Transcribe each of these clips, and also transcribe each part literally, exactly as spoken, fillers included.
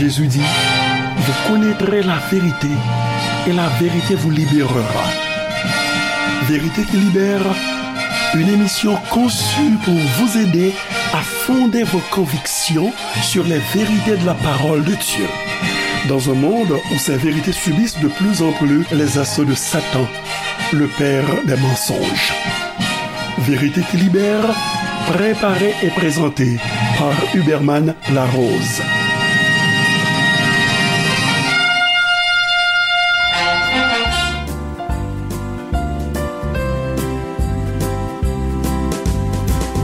Jésus dit, vous connaîtrez la vérité et la vérité vous libérera. Vérité qui libère, une émission conçue pour vous aider à fonder vos convictions sur les vérités de la parole de Dieu. Dans un monde où ces vérités subissent de plus en plus les assauts de Satan, le père des mensonges. Vérité qui libère, préparée et présentée par Huberman Larose.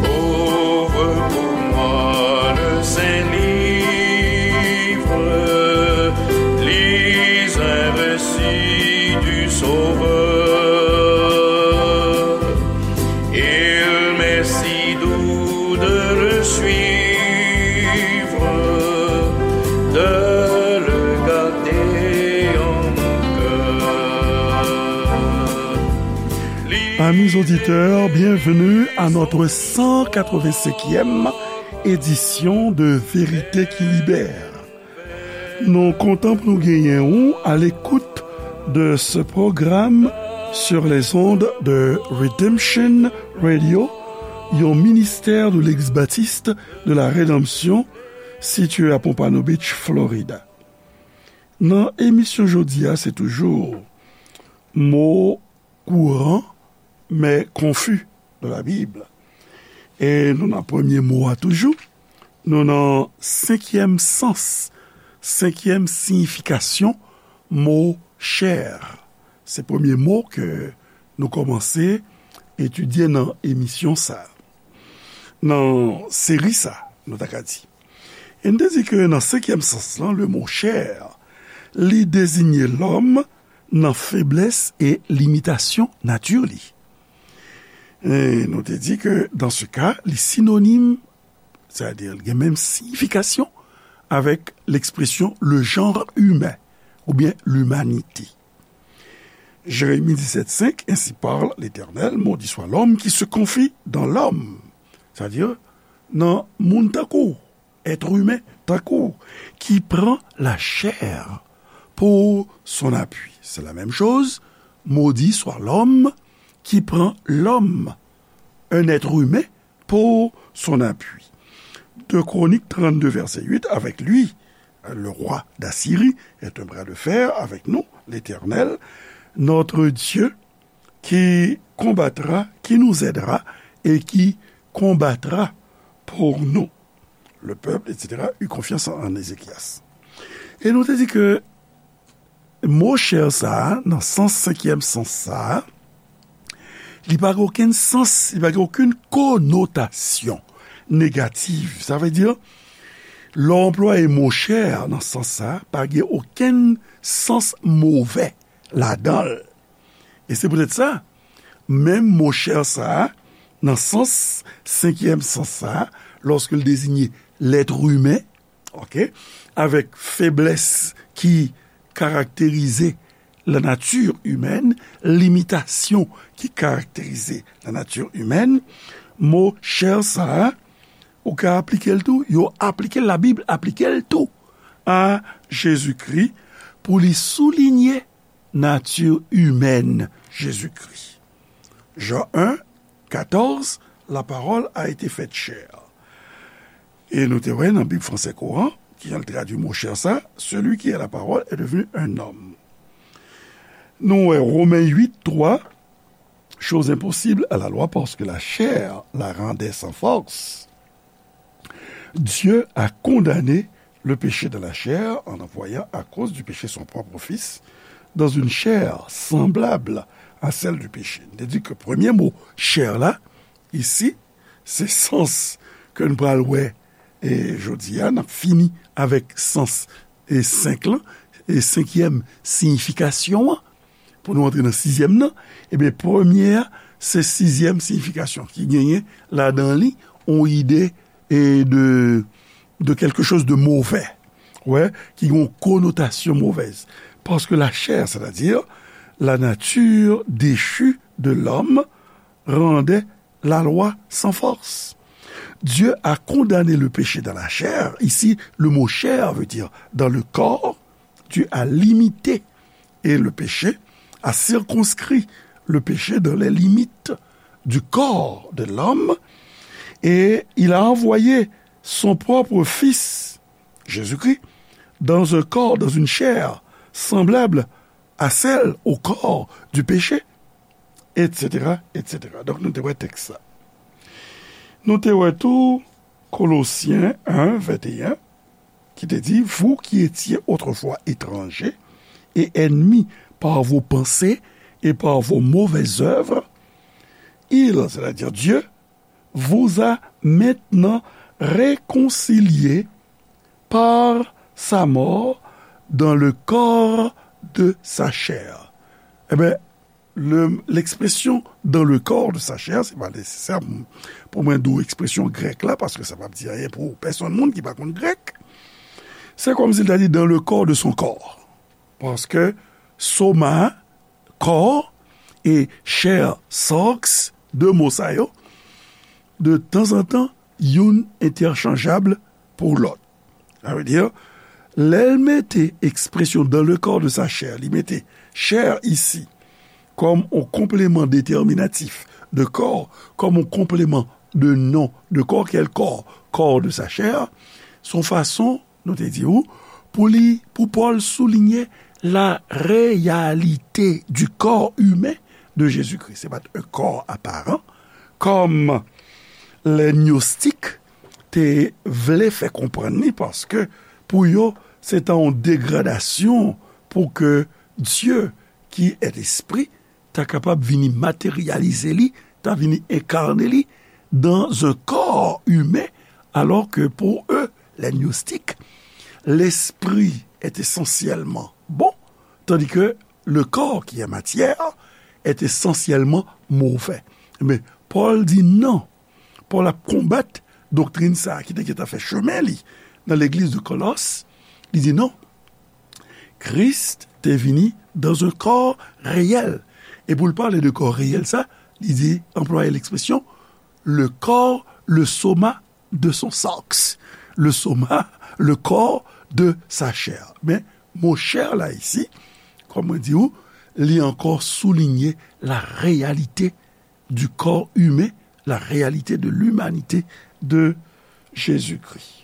Ouvre pour moi le Saint-Livre, lis un récit du Sauveur. Il m'est si doux de le suivre, de le garder en mon cœur. Amis auditeurs, bienvenue à notre cent quatre-vingt-cinquième édition de Vérité qui Libère. Nou kontan pou nou genyen ou à l'écoute de ce programme sur les ondes de Redemption Radio, yon ministère de l'Église baptiste de la Rédemption, situé à Pompano Beach, Florida. Nan emisyon jodi a, se toujou mo kouran, men konfi de la Bib. E nou nan premye mo a toujou. Nou nan senkyèm sans, senkyèm siyifikasyon mo chè. Se premye mo ke nou kòmanse etidye nan emisyon sa, nan seri sa, nou ta ka di. E n te di ke nan senkyèm sans lan, le mo chè, li dezigne lòm nan feblès e limitasyon nati li. E nou te di ke, dans ce cas, li sinonim, sètadi li gen menm siyifikasyon avèk l'expression le genre humain, oubyen l'humanité. Jérémie dix-sept cinq, ainsi parle l'Éternel, maudit soit l'homme qui se confie dans l'homme. Sètadi, nan moun tankou, être humain tankou, qui prend la chair pour son appui. C'est la même chose, maudit soit l'homme qui prend l'homme, un être humain, pour son appui. Deux Chroniques trente-deux, verset huit, avec lui, le roi d'Assyrie est un bras de fer avec nous, l'Éternel, notre Dieu, qui combattra, qui nous aidera et qui combattra pour nous. Le peuple, et cetera, eut confiance en Ézéchias. E nou te di ke mo chè sa a, nan sans, senkyèm sans sa a, li pa gen okenn sans, li pa gen okenn konotasyon negatif. Sa vle di, lè w anplwaye mo chè nan sans sa a, pa gen okenn sans movè ladan l. E se poutèt sa, menm mo chè sa a, nan sans, senkyèm sans sa a, lòske l dezigne lèt imen, oke, avèk feblès ki karakterize la nature humaine, limitasyon ki karakterize la nature humaine, mo chè sa a, ou ka aplike l tou, yo aplike l, Labib aplike l tou a Jezikri pou li soulinye nature humaine Jésus-Christ. Jean un, quatorze, la parole a été faite chair. E nou te wè nan Bib fransè kouran, ki jan l tradui mo chè sa, celui qui est la parole est devenu un homme. Nou wè Romen uit twa, chose impossible à la loi parce que la chair la rendait sans force. Dieu a condamné le péché dans la chair en envoyant à cause du péché son propre Fils dans une chair semblable à celle du péché. N te di ke premye mo chè la, isi, se sans ke n pral wè, e jodi a, n ap fini avèk sans, e senk lan, e senkyèm siyifikasyon an, pou nou antre nan sizyèm nan, ebyen, premye a, se sizyèm siyifikasyon ki genyen ladan li, yon ide e de, de quelque chose de mauvais, wè, ki gen yon konotasyon movèz. Parce que la chair, c'est-à-dire la nature déchue de l'homme, rendait la loi sans force. Dieu a condamné le péché dans la chair. Ici, le mot chair veut dire dans le corps. Dieu a limité et le péché, a circonscrit le péché dans les limites du corps de l'homme, et il a envoyé son propre Fils, Jésus-Christ, dans un corps, dans une chair semblable à celle au corps du péché, et cetera, et cetera. Donk, nou te wè tèks la. Nou te wè tou Kolosyen en, venteyen, ki te di, vous qui étiez autrefois étrangers et ennemis par vos pensées et par vos mauvaises œuvres, il, c'est-à-dire Dieu, vous a maintenant réconciliés par sa mort dans le corps de sa chair. Ebyen, le, l'expression dans le corps de sa chair, se pa nesesè pou, pou mwen di w ekspresyon grèk la, paske sa p ap di anyen pou pèsonn moun ki pa konn grèk. Se kòmsi l ta di dans le corps de son corps. Paske soma, kò, e chair, sarx, de mo sa yo, de tanzantan, youn entèchanjab pou lòt. Sa vle di, lè l mete ekspresyon dans le corps de sa chair, li mete chair isi kòm yon konpleman detèminatif de corps, kòm yon konpleman de non de corps, kèl kò, corps de sa chair, se yon fason, nou te di w, pou li, pou Pòl soulinye la réalité du corps humain de Jésus-Christ. Se pa t yon kò aparan, kòm lè gnostik te vle fè konprann li, paske pou yo, se ta yon degradasyon pou ke Dieu, qui est esprit, ta kapab vini materyalize li, ta vini enkarne li dans un corps humain, alors que pour eux, les gnostiques, l'esprit est essentiellement bon, tandis que le corps qui est matière est essentiellement mauvais. Men Pòl di non. Pòl ap konbat doktrin sa a ki te gentan fè chemen li nan legliz de Kolòs. Li di non. Kris te vini dans un corps réel. E pou l pale de kò reyèl sa, li di, anplwaye lekspresyon, le corps, le soma de son sarx. Le soma, le corps de sa chair. Men mo chair la isi, kòm mwen di w, li ankò soulinye la réalité du corps humain, la réalité de l'humanité de Jésus-Christ.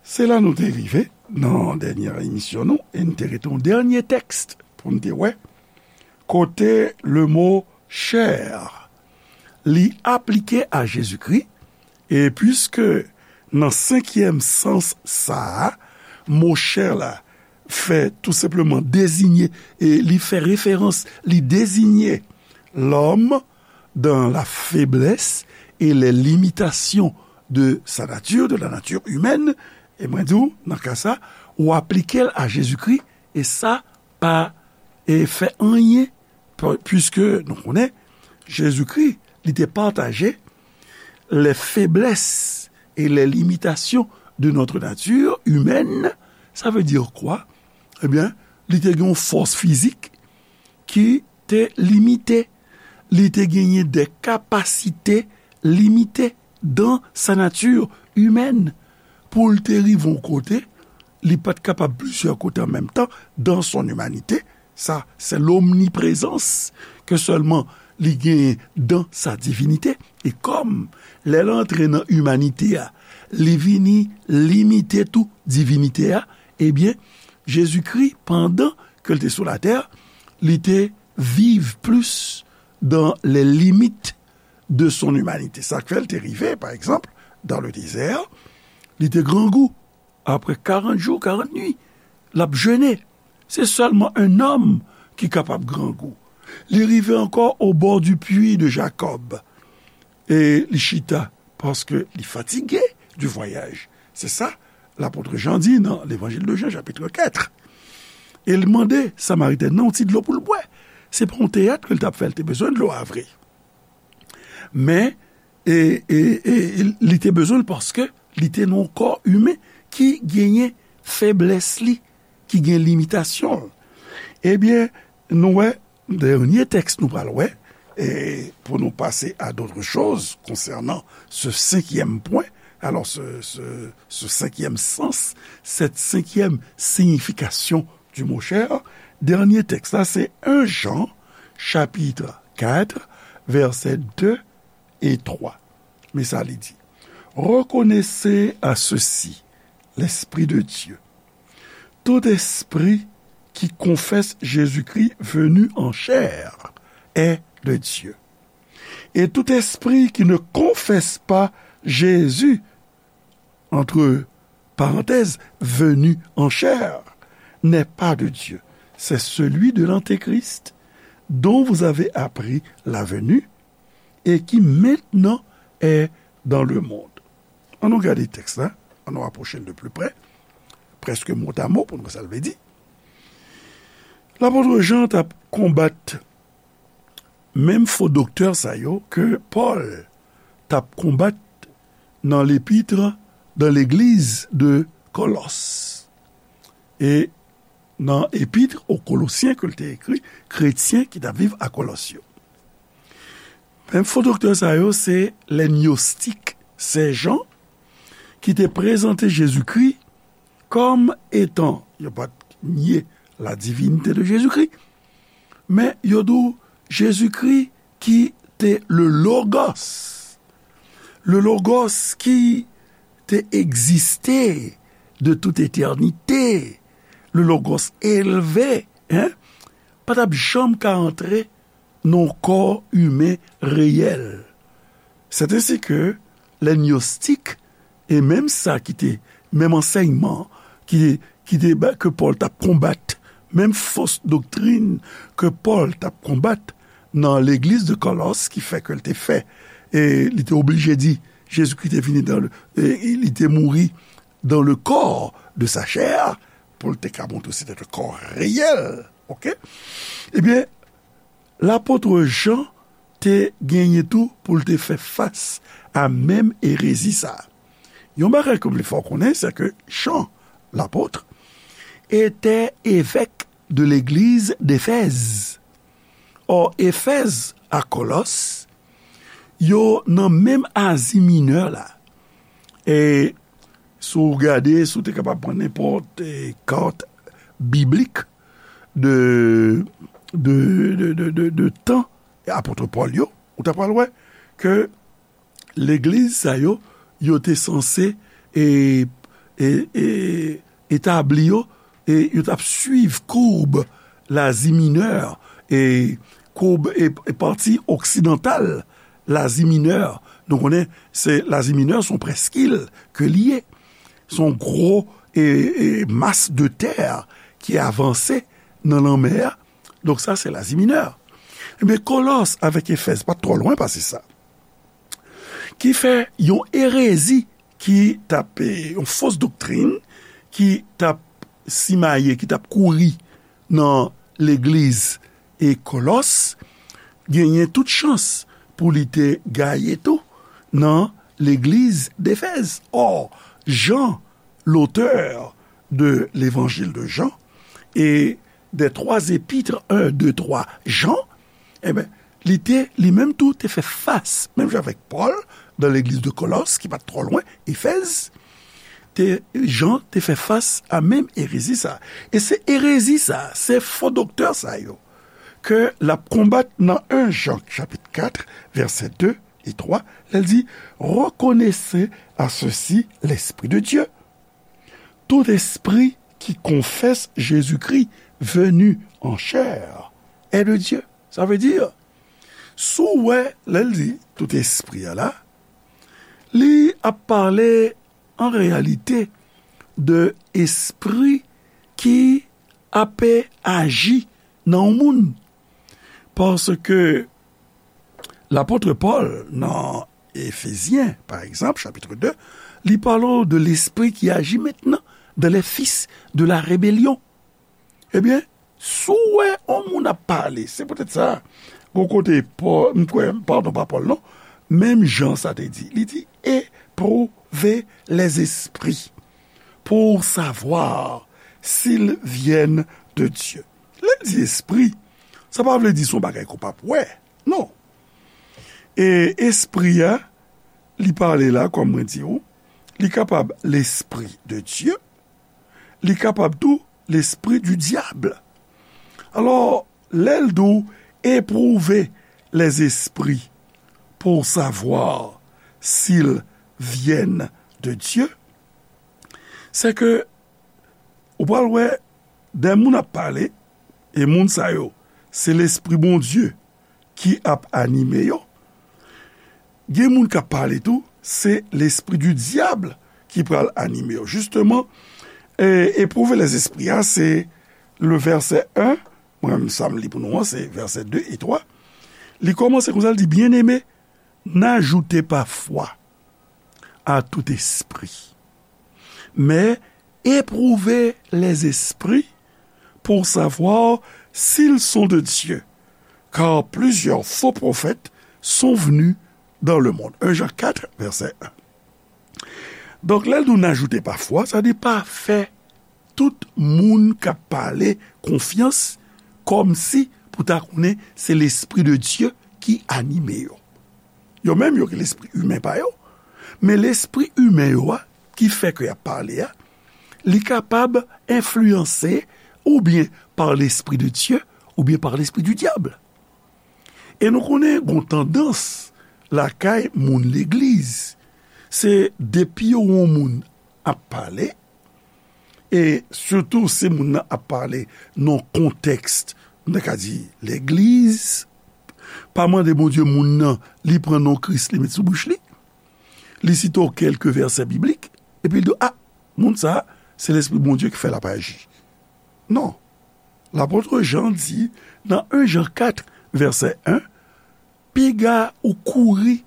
Se la nou te rive nan dènyè emisyon nou, e nou te rete yon dènyè tèks pou nou te wè, kote le mo chair, li aplike a Jezikri, e piske nan senkyèm sans sa a, mo chair la fè tou senpleman deziye, e li fè referans, li deziye l'homme dans la faiblesse et les limitations de sa nature, de la nature humaine, e mwen di w, nan ka sa, ou aplike l a Jezikri, e sa pa, e fè anyen, pi-, piske nou konnen, Jezikri, li te pataje les faiblesses et les limitations de notre nature humaine. Ça veut dire quoi? Ebyen, li te gen yon fòs fizik ki te limite. Li te genyen de kapasite limite dans sa nature humaine. Pou l te rive yon kote, li pa t kapab plizyè kote an menm tan dans son humanité. Sa, se lomniprezans ke sèlman li genyen dans sa divinité. E kòm, lè l antre nan imanite a, li vini limite tou divinite a, ebyen, Jezikri, pandan ke l te sou latè, li te viv plis dans les limites de son humanité. Sa k fè l te rive, pa egzanp, dans le désert, li te grangou. Apre karant jou, karant nwi, l ap jene. Se sèlman un homme ki kapab grangou. Li rive ankò au bord du puits de Jacob. E li chita, paske li fatige du voyage. Se sa, lapot Jan di nan Levanjil de Jan, chapit kat. E l mande Samaritèn nan yon ti dlo pou l bwè. Se pa yon teyat ke l t ap fè, l te bezwen dlo a vre. Men, e, e, e, li te bezwen l paske li te nan yon kò imen ki genyen feblès li, ki gen limitasyon l. Ebyen, nou wè, dènye tèks nou pral wè, Et pour nous passer à d'autres choses concernant ce cinquième point, alors ce, ce, ce cinquième sens, cette cinquième signification du mot chair, dènye tèks la, se un Jean, chapitre quatre, versets deux et trois. Men sa li di, reconnaissez à ceci l'Esprit de Dieu. Tout esprit qui confesse Jésus-Christ venu en chair est de Dieu. Et tout esprit qui ne confesse pas Jésus, entre parenthèses, venu en chair, n'est pas de Dieu. C'est celui de l'Antéchrist, dont vous avez appris la venue et qui maintenant est dans le monde. Ann nou gade tèks la, ann nou apwoche l de pli prè, prèske mot à mot pou nou wè sa l vle di. Lapot Jan t ap konbat menm fo doktè sa yo ke Pòl t ap konbat nan lepitre dans l'église de Colosses. E nan epitre aux Colossiens ke l te ekri, kretyen ki t ap viv a Kolòs yo. Menm fo doktè sa yo, se lè gnostik, se jan ki te prezante Jezikri kòm etan, yo pa t nye la divinité de Jésus-Christ, men yo di w Jezikri ki te le Logos. Le Logos ki te egziste de tout etènite. Le Logos elve, en, pa t ap janm ka antre nan yon kò imen reyèl. C'est ainsi que les gnostiques, e menm sa ki te, menm ansèyman ki, ki te, ke Pòl t ap konbat, menm fo doktrin ke Pòl t ap konbat nan legliz de Kòlòs, ki fè ke l te fè, e li te oblije di, Jezikri te vini dans le, e li te mouri dans le corps de sa chair, pou l te ka montre se te kò reyèl, oke? Ebyen, lapot Jan te genyen tou pou l te fè fas a menm erezi sa a. Yon bagay ke m vle fè w konnen, se ke Jan, lapot, était évêque de l'église d'Éphèse. Or, Éphèse a Kòlòs, yo nan menm Azi Minè la. E si w gade, si w te kapab pran nenpòt, e, kat biblik de, de, de, de, de, de tan apot Pòl yo, ou ta pral wè ke legliz sa yo, yo te sanse, e, e, e, etabli yo, e yo t ap swiv koub Lazi Minè, e koub, e, e pati oksidantal Lazi Minè. Nou konnen, se Lazi Minè, se yon prèskil ke li ye. Se yon gwo, e, e, mas de tè ki avanse nan lanmè a. Donk sa, se Lazi Minè. Ebyen, Kòlòs avèk Efèz pa t twò lwen pase sa. Ki fè yon erezi ki t ap, e, yon fos doktrin ki t ap simaye, ki t ap kouri nan legliz e Kòlòs, genyen tout chans pou li te gaye tou nan legliz d'Éphèse. Or, Jan, l'auteur de l'évangile de Jean, et des trois épîtres, un, deux, trois, Jean, ebyen, li te, li menm tou, te fè fas, menm jan avèk Pòl, nan legliz de Kòlòs, ki pa t twò lwen, Efèz, te, Jan te fè fas a menm erezi sa. E se erezi sa, se fo doktè sa yo, ke l ap konbat nan un Jan, chapit kat, vèsè de e twa, lè l di, reconnaissez à ceci l'Esprit de Dieu. Tout esprit qui confesse Jésus-Christ venu en chair est de Dieu. Sa vle di, si w wè, lè l di tout espri a la, li ap pale an reyalite de espri ki ape aji nan yon moun. Paske lapot Pòl nan Efezyen, pa egzanp, chapit de, li pale w de lespri ki aji mentnan dans les fils de la rébellion. Ebyen, si w wè yon moun ap pale, se poutèt sa, gon kote Pòl, m kwè, padon, pa Pòl non, menm Jan sa te di, li di, éprouver les esprits pour savoir s'ils viennent de Dieu. Lè l di espri, sa pa vle di se yon bagay ke w p ap wè. Non. E espri a, li pale la, kòm mwen di w, li kapab l'esprit de Dieu, li kapab tou l'esprit du diable. Alò, lè l di w éprouver les esprits pour savoir s'ils viennent de Dieu, se ke ou pral wè de moun ap pale, e moun sa yo, se Lespri Bondye ki ap anime yo. Gen moun k ap pale tou, se lespri di dyab ki pral anime yo. Jisteman, e, éprouver les esprits a, se le vèsè en, mwen menm sa m li pou nou an, se vèsè de e twa. Li kòmanse konsa, li di, Bien-aimés, n'ajoutez pas foi à tout esprit, mais éprouvez les esprits pour savoir s'ils sont de Dieu, car plusieurs faux prophètes sont venus dans le monde. Un Jean quatre, verset un. Donk, lè l di w n'ajoutez pas foi, sa di pa fè tout moun k ap pale konfyans kòmsi pou ta konnen se Lespri de Dye ki anime yo. Yo menm, yo gen lespri imen pa yo, men lespri imen yo a, ki fè ke y ap pale a, li kapab enfliyanse oubyen par l'Esprit de Dieu, oubyen par l'esprit du diable. E nou konnen gon tandans lakay moun legliz, se depi yo wè yon moun ap pale, e sitou si moun nan ap pale nan kontèks, nou ta ka di, legliz, pa mande Bondye moun nan, li pran non Kris, li met sou bouch li, li site kèlke vèsè biblik, epi l di, a, moun sa a, se Lespri Bondye ki fè l ap aji. Non. Lapot Jan di, nan en Jan kat, vèsè en, piga ou kouri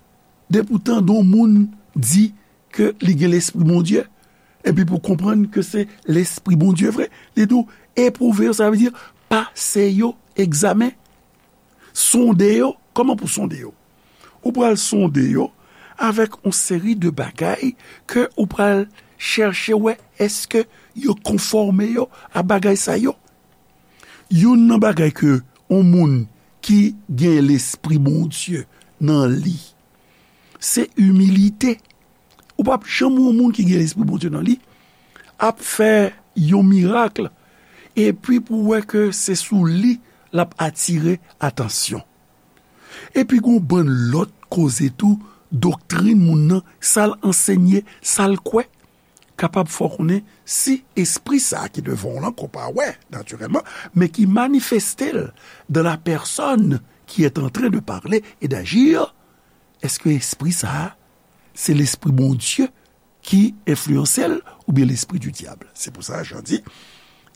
depi w tande yon moun di ke li gen Lespri Bondye, epi pou konprann ke se Lespri Bondye vre. Li di w, epwouve yo, sa vle di pase yo egzamen. Sonde yo. Kòman pou sonde yo? Ou pral sonde yo avèk yon seri de bagay ke ou pral chèche wè èske yo konfòme yo a bagay sa yo. Youn nan bagay ke yon moun ki gen Lespri Bondye nan li, se imilite. Ou p ap janm wè yon moun ki gen Lespri Bondye nan li ap fè yon mirak, epi pou w wè ke se sou li l ap atire atansyon. Epi gon bann lòt koze tou, doktrin moun nan, sa l ansenye, sa l kwè, kapab fè w konnen si espri sa a ki devan w lan, ke w pa wè natirèlman, men ki manifeste l dans la personne qui est en train de parler et d'agir, èske espri sa a, se Lespri Bondye ki enfliyanse l oubyen lespri di dyab? Se pou sa Jan di,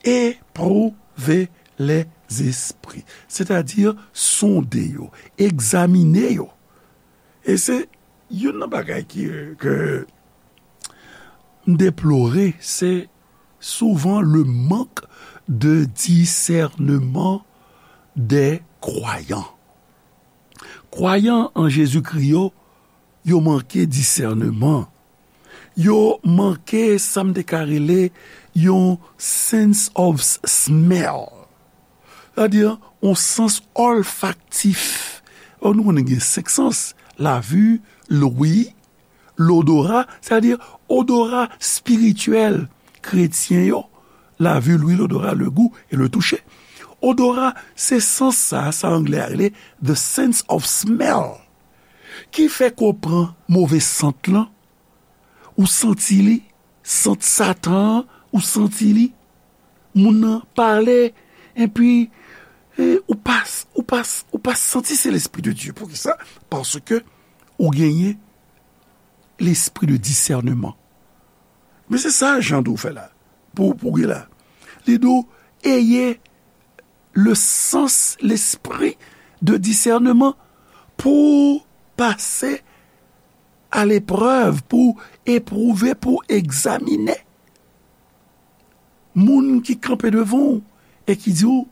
éprouve les esprits, sètadi sonde yo, egzamine yo. E se youn nan bagay ki, ke m deplore, se souvent le manque de discernement des croyants. Kwayan an Jezikri yo, yo manke disèneman. Yo manke sa m te ka rele yon sense of smell. Sètadi, yon sans olfaktif. Or, nou konnen gen senk sans, la vue, l'ouïe, l'odorat, sètadi odora espirityèl kretyen yo, la vue, l'ouïe, l'odorat, le goût et le toucher. Odora, se sans sa, sa anglè a rele the sense of smell, ki fè ke w pran move sant lan, ou santi li, sant Satan an, ou santi li, moun nan pale, epi, e, ou pa, ou pa, ou pa santi se Lespri de Dye. Poukisa? Paske ou genyen lespri de disèneman. Men se sa Jan di w fè la, pou, pou gen la. Li di w, ayez le sens, l'esprit de discernement pou pase à l'épreuve, pou epwouve, pou egzamine. Moun ki kanpe devan w e ki di w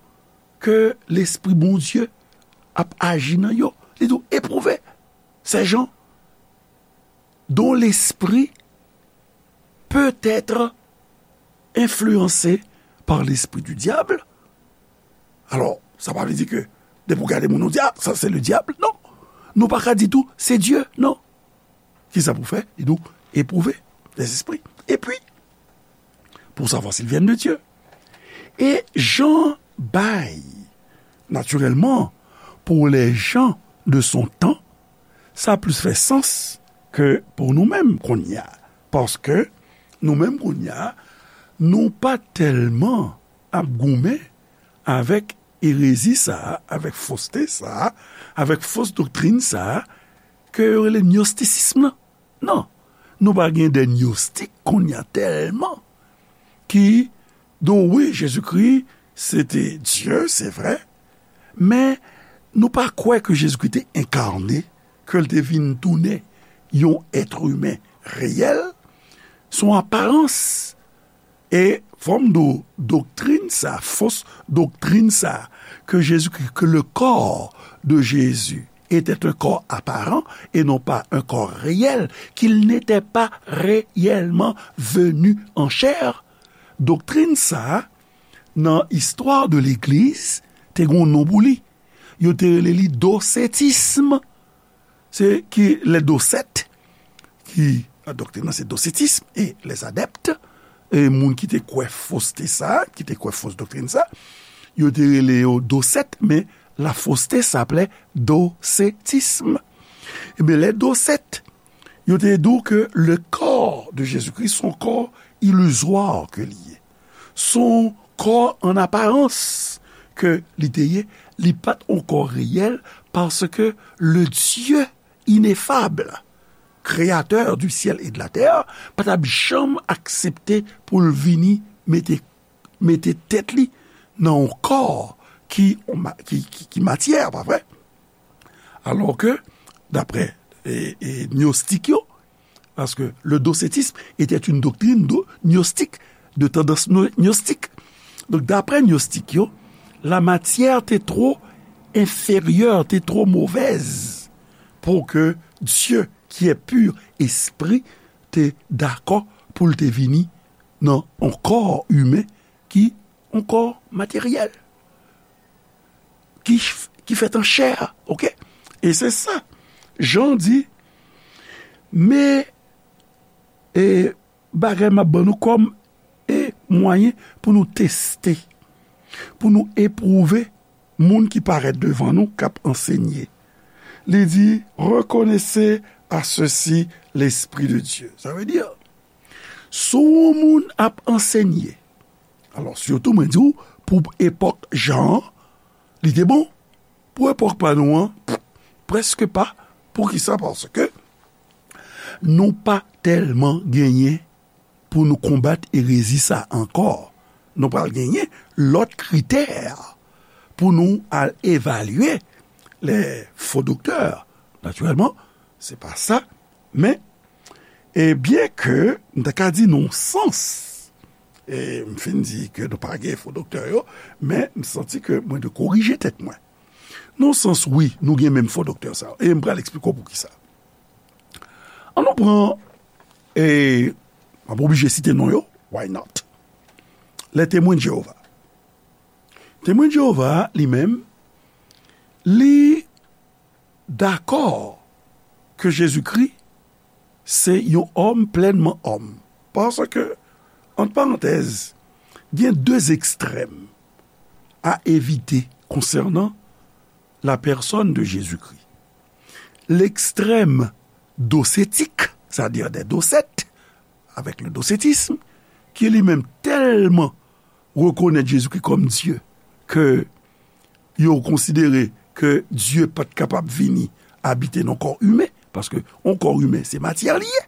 ke Lespri Bondye ap aji nan yo. Li di w, epwouve ces gens dont l'esprit peut être influencé par l'esprit du diable. Alò, sa pa vle di ke depi w gade moun, ou di, a, sa se le diable. Non. Nou pa ka di tou, se Dye, non. Kisa pou fè? Li di w, éprouver les esprits. Et puis, pour savoir s'ils viennent de Dieu. Et Jean bay, naturellement, pour les gens de son temps, sa plis fè sans ke pou nou menm kounye a. Paske nou menm kounye a, nou pa tèlman ap goumen avèk erezi sa a, avèk foste sa a, avèk fos doktrin sa a, ke yo rele gnostisism nan. Non, nou pa gen de gnostik kounye a tèlman ki di w, wi, Jezikri se te Dye, se vre, men nou pa kwè ke Jezikri te enkane, ke l te vin tounen yon èt imen reyèl. Se yon aparans. E fò m di w, doktrin sa, fos doktrin sa, que Jésus-Christ, que le corps de Jésus était un corps apparent et non pas un corps réel, qu'il n'était pas réellement venu en chair. Doktrin sa, nan istwa de legliz, te gen yon non pou li. Yo te rele li dosetism. Se ki lè dosèt, ki, doktrin nan se dosetism, e les adeptes, e moun ki te kwè foste sa, ki te kwè fos doktrin sa, yo te rele yo dosèt, men la fausseté s'appelait docetisme. Ebyen, lè dosèt, yo te di w ke le corps de Jésus-Christ, se yon kò ilizwa ke li ye. Se yon kò an aparans ke li te ye, li pa t yon kò reyèl, paske le Dieu ineffable, créateur du ciel et de la terre, pa t ap janm aksepte pou l vini mete, mete tèt li nan yon kò ki, ki, ki, ki matyè, pa vre? Alò ke, daprè, e, e, gnostik yo, paske le docetisme était une doctrine do-, gnostique, de tendance no-, gnostique. Donk, daprè gnostik yo, la matière te tro enfèryè, te tro movèz pou ke Dieu, qui est pur esprit, te dakò pou l te vini nan yon kò imen ki yon kò materyèl, ki, ki fèt an chè, oke? E se sa, Jan di, men, e, bagay m ap ban nou kòm, e, mwayen pou nou teste, pou nou epwouve moun ki parèt devan nou, k ap ansenye. Li di, reconnaissez à ceux-ci l'Esprit de Dieu. Sa vle di, si yon moun ap ansenye, alò, sitou mwen di w, pou epòk Jan an, li te bon. Pou epòk pa nou an, prèske pa. Poukisa? Paske nou pa tèlman genyen pou nou konbat erezi sa ankò. Nou pral genyen lòt kritè pou nou al evalye les faux docteurs. Natirèlman, se pa sa, men, e byen ke m ta ka di nan yon sans, e m fin di ke nou pa gen fo doktè yo, men m santi ke mwen dwe korije tèt mwen. Nan yon sans, wi, nou gen menm fo doktè sa yo, e m pral eksplike w poukisa. An nou pran, e m ap oblije site non yo, why not? Les Témoins de Jéhovah. Temwen de Jewova, li menm, li dakò ke Jezikri se yon òm plènman òm. Paske, ant parantèz, gen de ekstrèm a evite konsènan la pèsòn de Jezikri. Lekstrèm dosetik, sètadi dè dosèt, avèk le dosetism, ki li menm tèlman rekonèt Jezikri kòm Dye, ke yo konsidere ke Dye pa t kapab vini abite nan kò imen, paske yon kò imen, se matyè li ye.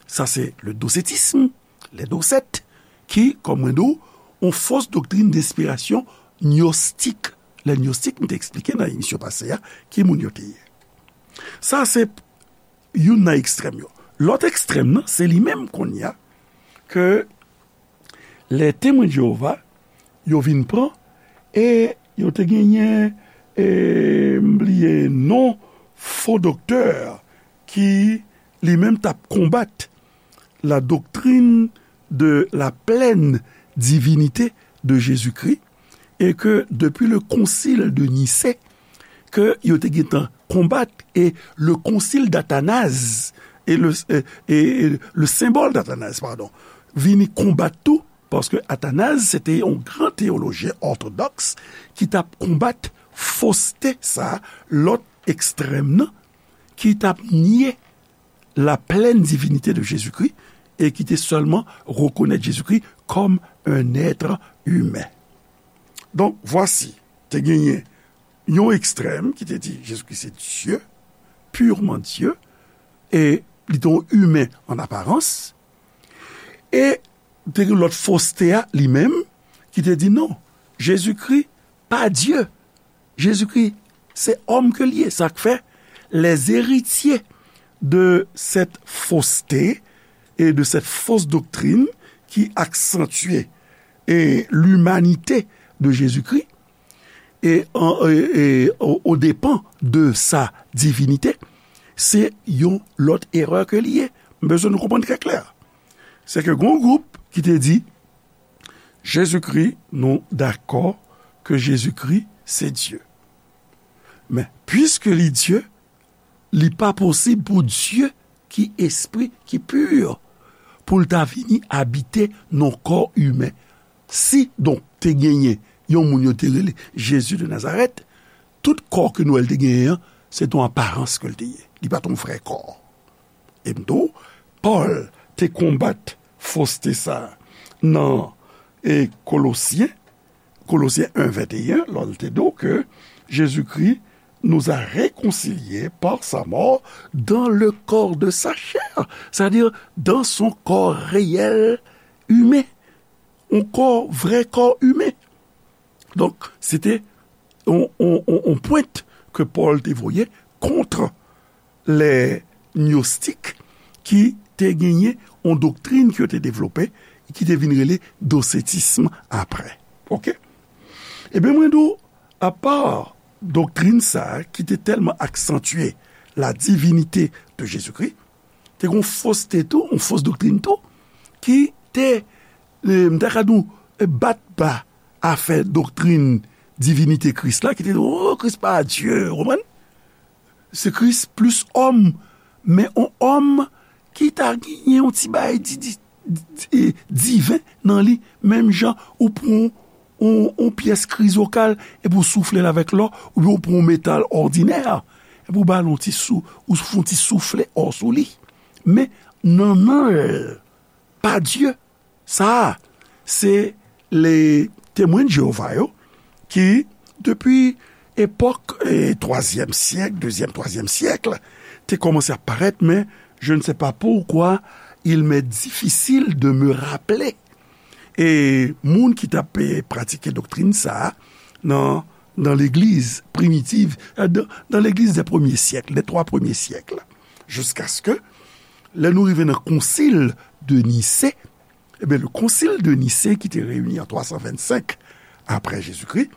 Sa se le dosetism, les docettes, ki, kòm mwen di w, yon fos doktrin de enspirasyon gnostik. Les gnostiques, m te eksplike nan emisyon pase a, ki moun yo te ye. Sa se youn nan ekstrèm yo. Lòt ekstrèm nan, se li menm kounye a ke les Témoins de Jéhovah, yo vin pran, e yo te genyen, e, m bliye non, fo doktè ki li menm t ap konbat la doctrine de la pleine divinité de Jésus-Christ, e ke depi le concile de Nicée, ke yo te gentan konbat, e le konsil d'Atanaz, e le, e, e, e le symbole d'Athanase, padon, vini konbat tou, paske Atanaz, se te yon gran teyolojyen òtodòks ki t ap konbat foste sa, lòt ekstrèm nan, ki t ap nye la plèn divinite de Jezikri e ki te sèlman rekonèt Jezikri kòm un être humain. Donk, vwasi, te genyen yon ekstrèm ki te di Jezikri se Dye, purement Dieu, e li te yon imen an aparans, e te gen lòt foste a li menm ki te di non, Jezikri pa Dye, Jezikri se òm ke l ye. Sa k fè les héritiers de cette fausseté et de cette fausse doctrine qui accentue et l'humanité de Jésus-Christ et, en- et- et au, au dépens de sa divinité, se yon lòt erè ke li ye. M bezwen nou konprann trè klè. Se ke gon gwoup ki te di Jezikri, nou dakò ke Jezikri se Dye. Men, piske li Dye, li pa posib pou Dye ki espri, ki pi, pou l ta vini abite nan kò imen. Si, donk, te genyen yon moun yo te rele Jezi de Nazarèt, tout kò ke nou wè l te genyen an, se t on aparans ke l te ye. Li pa t on vrè kò. E m di w, Pòl te konbat foste sa a nan e Kolosyen, Kolosyen en venteyen, lè l te di w ke Jésus-Christ nous a réconciliés par sa mort dans le corps de sa chair, c'est-à-dire dans son corps réel, humain, yon kò, vrè kò imen. Donk, se te yon, yon, yon, yon pwent ke Pòl te voye kont lè gnostik ki te genyen yon doktrin ke yo te devlope, ki te vin rele dosetism apre. Oke? Ebyen, mwen di w, apa doktrin sa a ki te tèlman aksantye la divinite de Jezikri, te gen yon foste tou, yon fos doktrin tou, ki te, e, m ta ka di w, e, bat ba afè doktrin divinite Kris la, ki te di, o, Kris pa Dye, ou konprann? Se Kris plis òm, men yon òm ki ta genyen yon ti bagay di, di, di, e, diven nan li, menm jan ou pran yon, yon pyès krizokal epi w soufle l avèk lò, oubyen w pran yon metal òdinè, epi w ba l yon ti sou, ou fè yon ti soufle ò sou li. Men, nannan l pa Dye. Sa a, se le Temwen de Jewova yo ki, depi epòk, e, twazyèm syèk, dezyèm, twazyèm syèk, te kòmanse ap parèt, men je ne sais pas pourquoi il m'est difficile de me rappeler. E moun ki t ap, e, pratike doktrin sa a nan, nan legliz primitiv, e, dan, dan legliz dè premye syèk, dè twa premye syèk, jiskaske lè nou rive nan konsil de Nise, Ebyen, le Concile de Nicée, ki te reyini an twa san vennsenk apre Jezikri,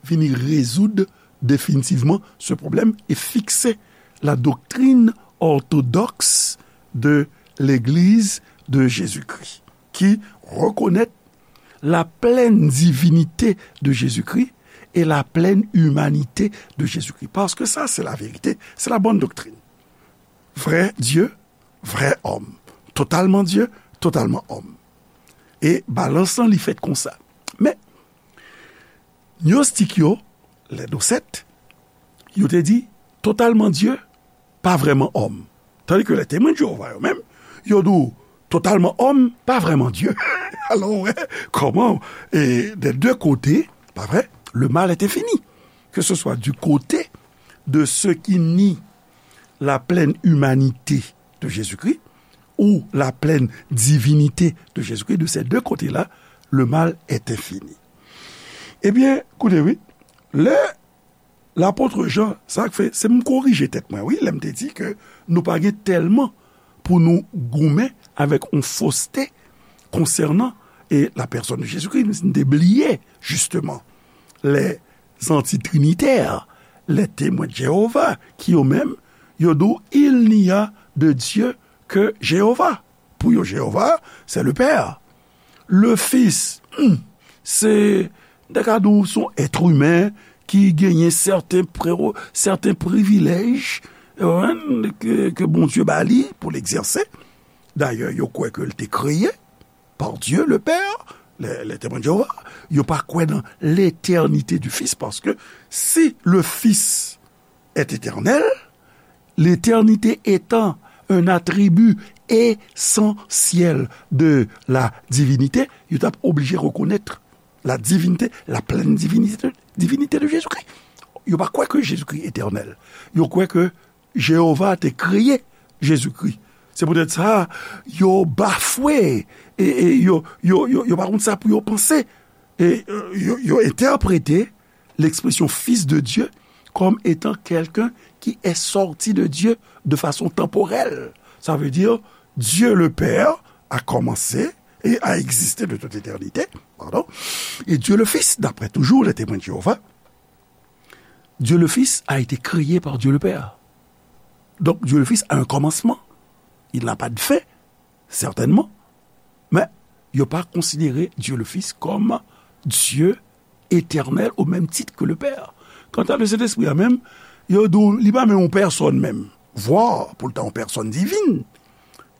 vini rezoud definitivman se pwoblèm e fikse la doctrine orthodoxe de l'Église de Jésus-Christ, ki rekonèt la pleine divinité de Jésus-Christ et la pleine humanité de Jésus-Christ. Parce que ça, c'est la vérité, c'est la bonne doctrine. Vrè Dye, vrè òm. Totalman Dye, totalman òm. E balans lan, li fèt konsa. Men, gnostik yo, lè dosèt, yo te di, totalman Dye, pa vrèman òm. Tandike lè Temwen de Jewova yo menm, yo di w, totalman òm, pa vrèman Dye. Alò, w wè kòman, e, des deux côtés, pa vre, le mal est infini. Que ce soit du côté de ceux qui nient la pleine humanité de Jésus-Christ ou la pleine divinité de Jésus-Christ, de ces deux côtés-là, le mal est infini. Ebyen, koute wi, lè lapot Jan, sa k fè, se m korije tèt mwen, wi, lè m te di ke nou pa gen tèlman pou nou goumen avèk yon foste konsènan, e, la pèsòn de Jezikri, nou te bliye, jisteman, lè antitrinitè, lè Temwen de Jewova, ki yo menm, yo di w, il n'y a de Dieu que Jéhovah. Pou yo, Jewova, se le Père. Le Fils, hmm, se, m ta ka di w, se yon èt imen ki genyen sèten pre-, sèten privilèj, ke, ke Bondye ba li pou l egzèse. Dayè, yo kwè ke l te kreye par Dieu le Père, les, les Témoins de Jéhovah, yo pa kwè nan l'éternité du Fils, paske si le Fils est éternel, l'éternité étant un attribut essentiel de la divinité, yo t ap oblije rekonèt la divinité, la pleine divinité, divinité de Jésus-Christ. Yo pa kwè ke Jezikri etènèl. Yo kwè ke Jewova te kreye Jezikri. Se poutèt sa, yo bafwe, e, e yo, yo, yo, yo pa konn sa pou yo panse. E, e, yo, yo entèprete l'expression Fils de Dieu comme étant quelqu'un qui est sorti de Dieu de façon temporelle. Ça veut dire, Dieu le Père a commencé et a existé de toute éternité, pardon, et Dieu le Fils, d'après toujours les Témoins de Jéhovah, Dieu le Fils a été créé par Dieu le Père. Donc, Dieu le Fils a un commencement. Il n'a pas de fin, certainement. Men, yo pa konsidere Dieu le Fils comme Dieu éternel au même titre que le Père. Kanta le Sentespri a menm, yo di w, li pa menm yon pèsòn menm. Vwa, pou l ta yon pèsòn divin.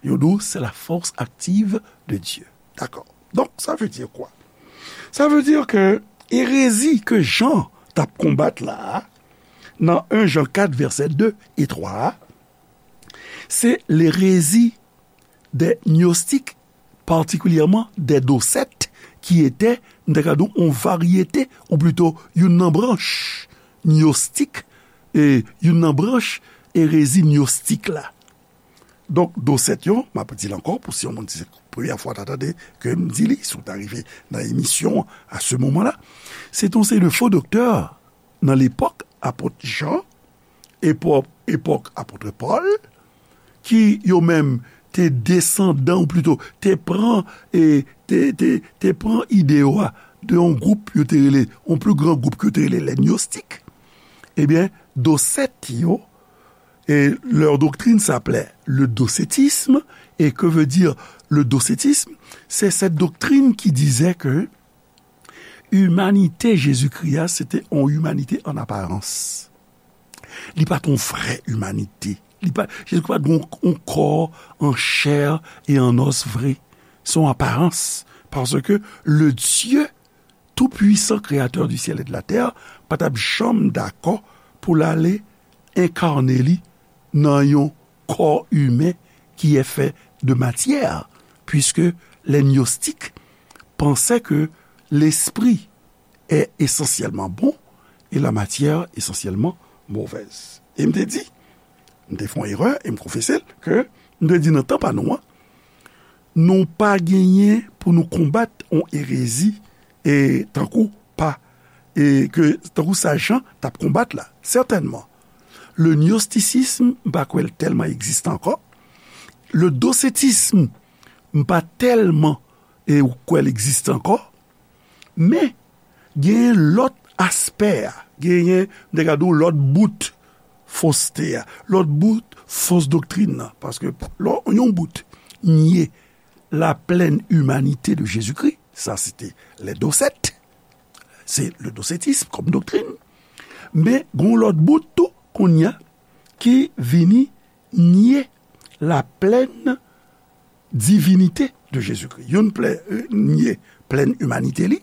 Yo di w, c'est la force active de Dieu. Dakò. Donk, sa vle di kwa? Sa vle di ke erezi ke Jan t ap konbat la a, nan en Jan kat, vèsè de e twa a, se lerezi des gnostiques, particulièrement des docettes, qui étaient, m ta ka di w, yon varyete, ou plito, youn nan branch gnostik, e youn nan branch erezi gnostik la. Donk, dosèt yo, m ap di l ankò, pou si yon moun se premyè fwa w ta tande ke m di li, si w ta rive nan emisyon an, à ce moment-là, se te yon seri de fo doktè nan lepòk apot Jan, epòk, epòk apot Pòl, ki yo menm te desandan, ou plito, te pran, e, te, te, te pran ide yo a de yon gwoup yo te rele, yon pli gran gwoup ke yo te rele les gnostiques. Ebyen, dosèt yo, et leur doctrine s'appelait le docetisme. Et que veut dire le docetisme? C'est cette doctrine qui disait que imanite Jezikri a, se te yon imanite an aparans. Li pa t yon vrè imanite. Li pa, Jezikri pa t yon, yon kò an chè e an os vre. Se yon aparans. Paske le Dieu tout-puissant, créateur du ciel et de la terre, pa t ap janm dakò pou l ale enkane li nan yon kò imen qui est fait de matière, puisque les gnostiques pensaient que l'esprit est essentiellement bon et la matière essentiellement mauvaise. E m te di, m te fè yon erè, e m konfese l, ke m te di nan tan pa nou an, nou pa genyen pou nou konbat yon erezi, e tankou pa, e ke, tankou sa Jan t ap konbat la. Sètènman, le gnosticisme, m pa kwè l tèlman egziste ankò. Le docetisme, m pa tèlman, e, kwè l egziste ankò. Men, genyen lòt aspè a, genyen, m te ka di w, lòt bout foste a, lòt bout fos doktrin nan. Paske lè yon bout nye la plèn imanite de Jezikri, sa se te lè dosèt, se le docetisme kòm doktrin. Men, gen yon lòt bout tou, kounye a, ki vini nye la plèn divinite de Jezikri. Youn plè, euh, nye plèn imanite li,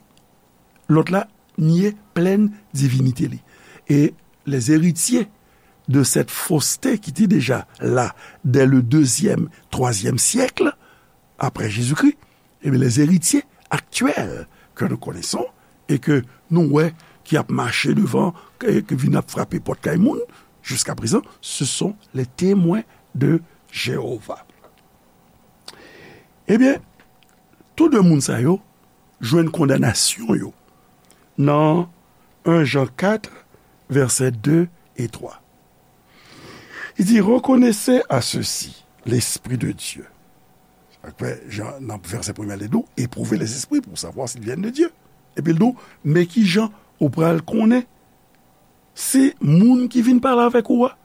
lòt la nye plèn divinite li. E les héritiers de cette fausseté qui était déjà là dès le deuxième, troisième siècle après Jésus-Christ, ebyen, les héritiers actuels que nous connaissons et que nou wè ki ap mache devan, ke, ke vin ap frape pòt kay moun, jusqu'à présent, ce sont les Témoins de Jéhovah. Ebyen, tou de moun sa yo jwenn kondanasyon yo nan en Jan kat, vèsè de e twa. Il dit, reconnaissez à ceux-ci l'Esprit de Dieu. Sa k fè, Jan, nan vèsè premye a, li di w, éprouvez les esprits pour savoir s'ils viennent de Dieu. Epi l di w, men ki jan ou pral konnen si moun ki vin pale avèk ou a,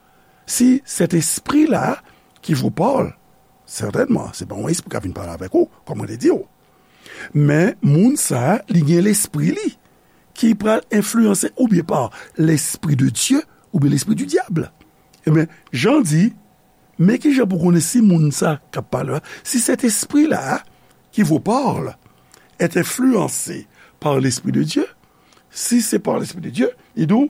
si cet esprit-là qui vous parle, sètènman, se pa yon espri k ap vin pale avèk ou, kòm mwen te di w. Men moun sa a, li gen lespri li. ki pral enfliyanse oubyen pa lespri de Dye oubyen lespri di dyab. Ebyen, Jan di, men ki jan pou konnen si moun sa k ap pale la, si cet esprit-là qui vous parle est influencé par l'Esprit de Dieu, si c'est par l'Esprit de Dieu, li di w,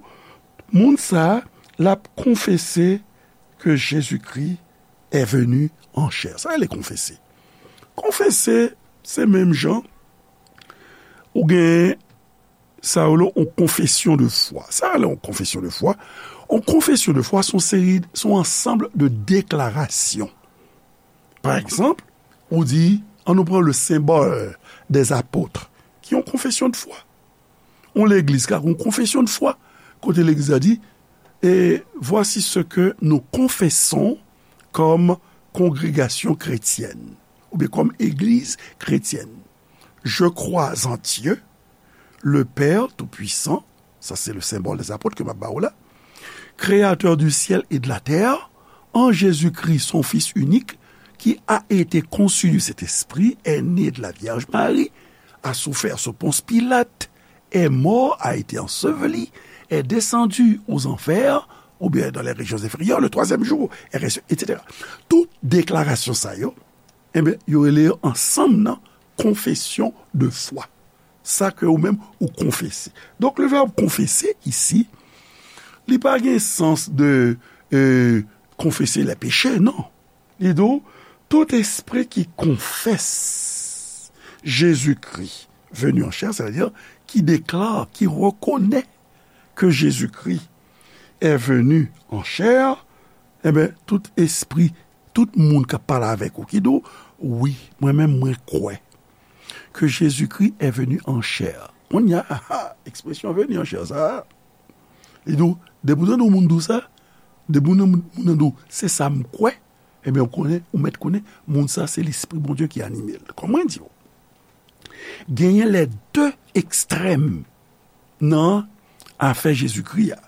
moun sa a, l ap konfese ke Jezikri est venu en chair. Sa rele konfese. Konfese, se menm jan ou gen sa yo rele yon confession de foi. Sa rele yon confession de foi. Yon confession de foi, se yon seri, se yon ansanm de deklarasyon. Pa egzanp, ou di, an nou pran le symbole des apôtres, ki yon confession de foi. Yon legliz ka gen yon confession de foi, kote legliz la di, et voici ce que nous confessons comme congrégation chrétienne, oubyen comme église chrétienne. Je crois en Dieu, le Père Tout-Puissant, sa se le symbole des apôtres ke m ap ba w la, créateur du ciel et de la terre, en Jésus-Christ, son Fils unique, qui a été conçu du Saint-Esprit, est né de la Vierge Marie, a souffert sous Ponce Pilate, est mort, a été enseveli, est descendu aux enfers, oubyen dans les régions inférieures, le troisième jour, est ressuscité, et cetera. Tout deklarasyon sa yo, ebyen, yo rele yo ansanm nan confession de foi. Sa ke ou menm ou konfese. Donk, le verbe confesser ici, li pa gen sans de, euh, confesser les péchés, non. Li di w, tout esprit qui confesse Jésus-Christ venu en chair, c'est-à-dire qui déclare, qui reconnaît que Jésus-Christ est venu en chair, ebyen, tout espri, tout moun k ap pale avèk ou, ki di w, wi, mwen menm, mwen kwè que Jésus-Christ est venu en chair. Kounye a, ah, ah, ekspresyon venu en chair sa a, li di w, depi w tande yon moun di w sa, depi w tande moun, moun nan di w, se sa m kwè, ebyen, ou konnen, ou mèt konnen, moun sa, se Lespri Bondye ki anime l. Kòm mwen di w, genyen les deux extrêmes nan afè Jezikri a.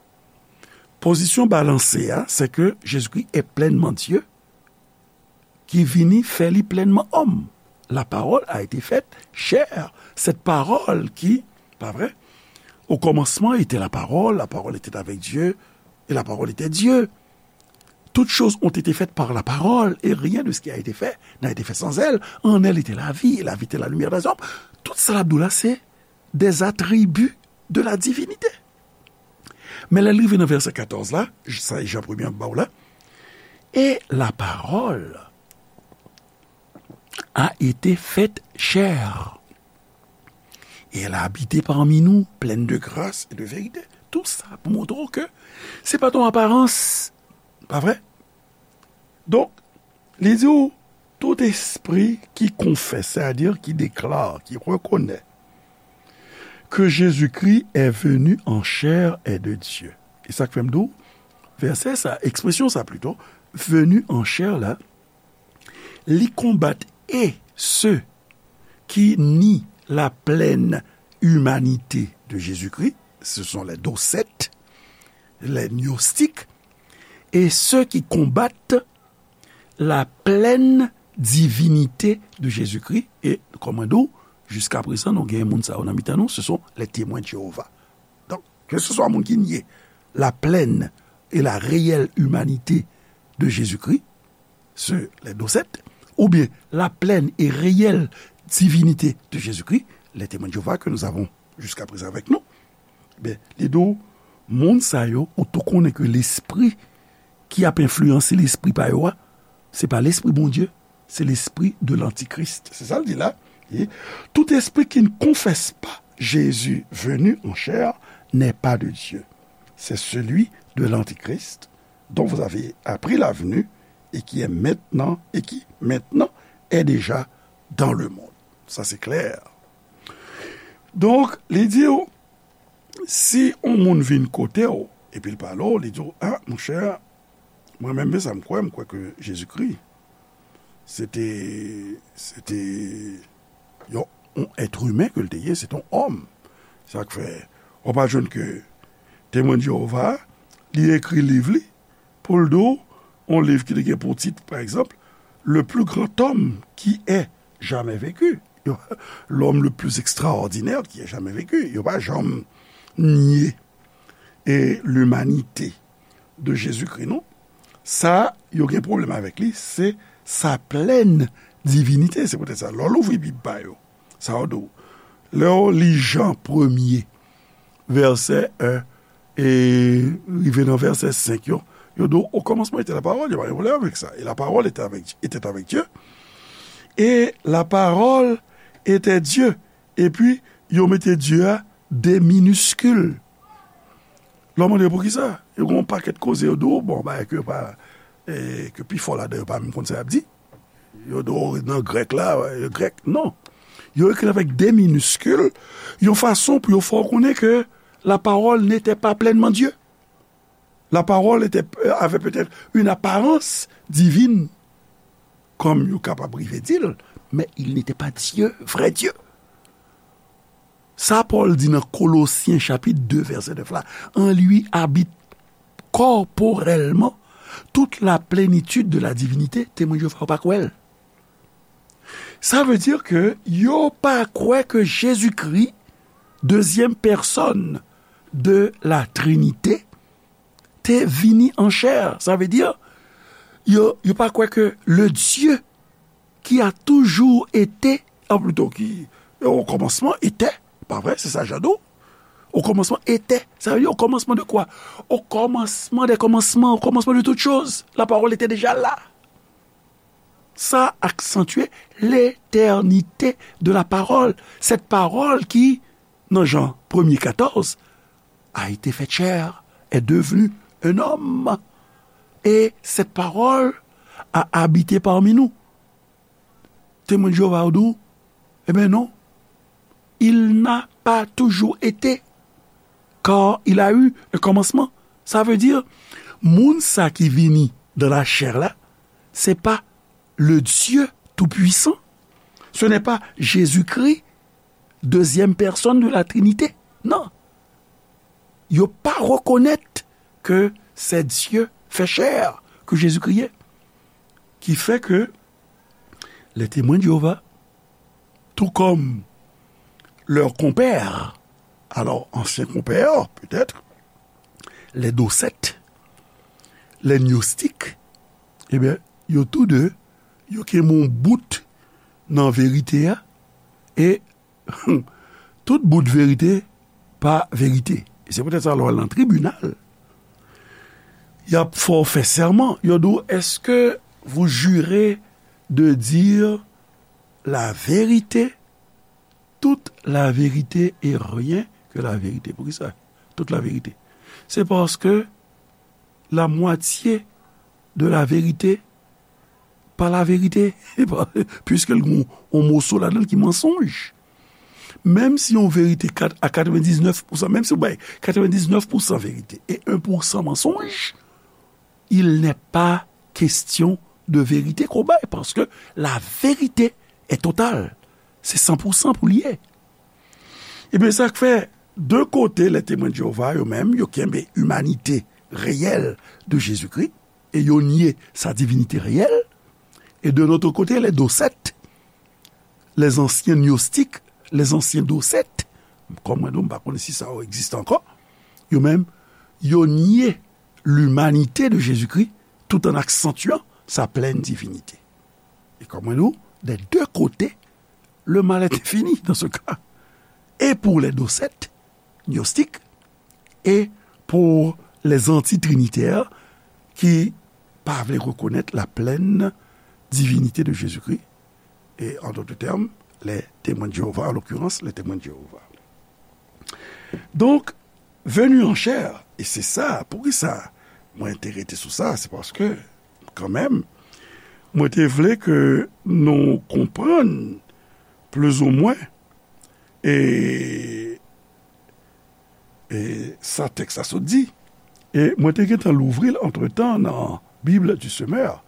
Pozisyon balanse a, se ke Jezikri est pleinement Dieu, ki vini fè li plenman òm. La parole a été faite chair. Cette parole qui, pa vre? Au commencement était la parole, la parole était avec Dieu, et la parole était Dieu. Toutes choses ont été faites par la parole, et rien de ce qui a été fait n'a été fait sans elle. En elle était la vie, et la vie était la lumière des hommes. Tout sa l ap di w la, se des attributs de la divinité. Men lè l rive nan vèsè katòz la, sa e Jan premye an ba w la, et la parole a été faite chair. Et elle a habité parmi nous, pleine de grâce et de vérité. Tout sa pou montre w ke se pa t yon aparans, pa vre? Donk, li di w, tout esprit qui confesse, c'est-à-dire qui déclare, qui reconnaît que Jésus-Christ est venu en chair est de Dieu. E sa k fè m di w, vèsè sa, ekspresyon sa plito, venu en chair la, li konbat et ceux qui nient la pleine humanité de Jésus-Christ, ce sont les docettes, les gnostiques, et ceux qui combattent la pleine divinité de Jésus-Christ. E, kòm mwen di w, jiska prezan, nou gen moun sa yo nan mitan nou, ce sont les Témoins de Jéhovah. Donk, ke se swa moun ki nye la plèn e la reyèl imanite de Jezikri, se les docettes, oubyen la plèn e reyèl divinite de Jezikri, les Témoins de Jéhovah que nous avons jusqu'à présent avec nous, ben, li di w, moun sa yo, ou tou konnen ke lespri ki ap enfliyanse lespri pa yo a, se pa lespri Bondye, se lespri de l'antichrist. Se sa l di la. Et tout esprit qui ne confesse pas Jésus venu en chair n'est pas de Dieu. C'est celui de l'antichrist dont vous avez appris la venue et qui est maintenant, et qui maintenant est déjà dans le monde. Sa se klè. Donk, li di w, si yon moun vin kote w, epi l pale w, li di w, a, monchè, mwen menm, men sa m kwè, m kwè ke Jezikri, se te, se te yon, yon èt imen ke l te ye, se te yon òm. Sa k fè, w ap jwenn ke Temwen de Jewova, li ekri liv li, pou l di w, yon liv ki te gen pou tit, pa egzanp, Le plus grand homme qui ait jamais vécu. Yo, L'homme le plus extraordinaire qui ait jamais vécu. Yo pa janm nye e limanite de Jezikri, non. Sa, yo gen pwoblèm avèk li, se sa plèn divinite. Se poutèt sa, lè w louvri Bib pa yo, sa yo di w, lè w li Jan premye, vèsè en, e rive nan vèsè senk yo, yo di w, au commencement était la parole, yo pa gen pwoblèm avèk sa. Et la parole était avec, était avec Dieu. Et la parole était Dieu. Epi, yo mete Dye a de miniskil. Lè w mande yo poukisa, yo gen yon pakèt koze yo di w, bon, bagay ke yo pa, e, ke pifò ladan yo pa menm konn sa y ap di. Yo di w nan grèk la, yo grèk, non. Yo ekri avèk de miniskil, yon fason pou yo fè w konnen ke la parole n'était pas pleinement Dieu. La parole était, euh, avait peut-être une apparence divine, comme yo kapab rive di l, mais il n'était pas Dieu, vrai Dieu. Sa Pòl di nan Kolosyen chapit de vèsè nèf la, en lui habite corporellement toute la plénitude de la divinité, Temwen Jewova yo pa kwè l. Sa vle di ke yo pa kwè ke Jezikri, dezyèm pèsòn de la Trinite, te vini an chè. Sa vle di, yo, yo pa kwè ke le Dieu qui a toujours été, an plito ki, au commencement était, pa vre, se sa Jan di w. Au commencement était, sa vle di au commencement de quoi? Au commencement des commencements, au commencement de toutes choses, la parole était déjà là. Ça accentuait l'éternité de la parole. Cette parole qui, nan Jan premye katòz, a été faite chair, est devenue un homme. Et cette parole a habité parmi nous. Temwen Jewova yo di w, eh bien non, il n'a pas toujours été, car il a eu un commencement. Sa vle di, moun sa ki vini dans la chair la, se pa le Dieu Tout-Puissant. Ce n'est pas Jésus-Christ, deuxième personne de la Trinité. Non. Yo pa rekonèt ke c'est Dieu fait chair, ke Jezikri ye. Ki fè ke les Témoins de Jéhovah, tout comme leurs compères, alors anciens compères peut-être, les Docètes, les Gnostiques, eh bien, yo tou de, yo kenbe yon bout nan verite a, e tout bout verite pa verite. E se poutèt sa, lè w al nan tribinal, y ap fè w fè sèman. Yo di w, est-ce que vous jurez de dire la vérité, toute la vérité et rien que la vérité? Poukisa toute la vérité? Se paske la moitié de la vérité pa la verite, piske l gen yon moso ladan l ki mansonj. Menm si yon verite kat-, a katrevendiznèf pousan, menm si w bay katrevendiznèf pousan verite e en pousan mansonj, il n'est pas question de vérité ke w bay, paske la vérité est totale. Se san pousan pou l ye. Ebyen, sa k fè, de kote, les Témoins de Jéhovah, yo menm, yo kenbe imanite reyèl de Jezikri, e yo nye sa divinite reyèl, e de l'autre côté, les Docètes, les anciens Gnostiques, les anciens Docètes, kòm mwen di w, m pa konnen si sa yo egziste ankò, yo menm, yo nye limanite de Jezikri tout en accentuant sa pleine divinité. E kòm mwen di w, des deux côtés, le mal est infini dans ce cas. Et pour les Docètes, Gnostiques, et pour les antitrinitaires qui pa vle reconnaître la pleine divinité de Jésus-Christ, et en d'autres termes, les Témoins de Jéhovah, en l'occurrence, les Témoins de Jéhovah. Donc, venu en chair, e se sa, poukisa mwen te rete sou sa, se paske, kanmenm, mwen te vle ke nou konprann plizoumwen e, e sa tèks la sot di. E mwen te gentan louvri l antretan nan Bible du Semeur.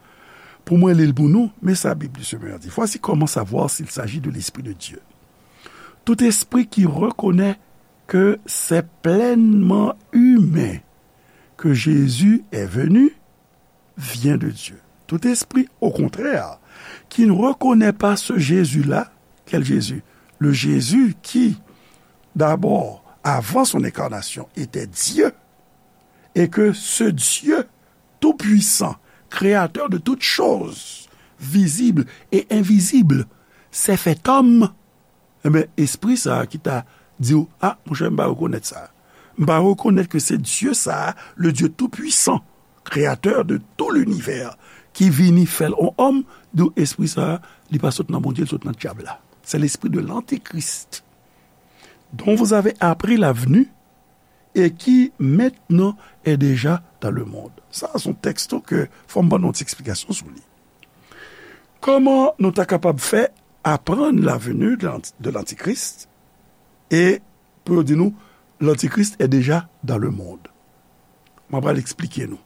Pou mwen li l pou nou, men sa Bible du Semeur di. Voici comment savoir s'il s'agit de l'Esprit de Dieu. Tout esprit qui reconnaît que c'est pleinement humain que Jésus est venu vient de Dieu. Tout esprit, au contraire, qui ne reconnaît pas ce Jésus-là, quel Jésus? Le Jésus qui, d'abord, avant son incarnation, était Dieu, et que ce Dieu tout-puissant, créateur de toutes choses, visibles et invisibles, s'est fait homme, enben, espri sa a ki ta di w, a, monchè, m pa rekonèt sa. M pa rekonèt ke se Dye sa a, le Dieu tout-puissant, créateur de tout l'univers, ki vini fè l on òm, di w, espri sa a, li pa sot nan Bondye, li sot nan dyab la. C'est l'esprit de l'antichrist, dont vous avez appris la venue et qui maintenant est déjà dans le monde. Sa, se yon tèks tou ke fò m ban nou ti eksplikasyon sou li. Kòman nou ta kapab fè aprann la venue de l'anti-, de l'antichrist e pou yo di nou, l'antichrist est déjà dans le monde? Mwen pral eksplike nou.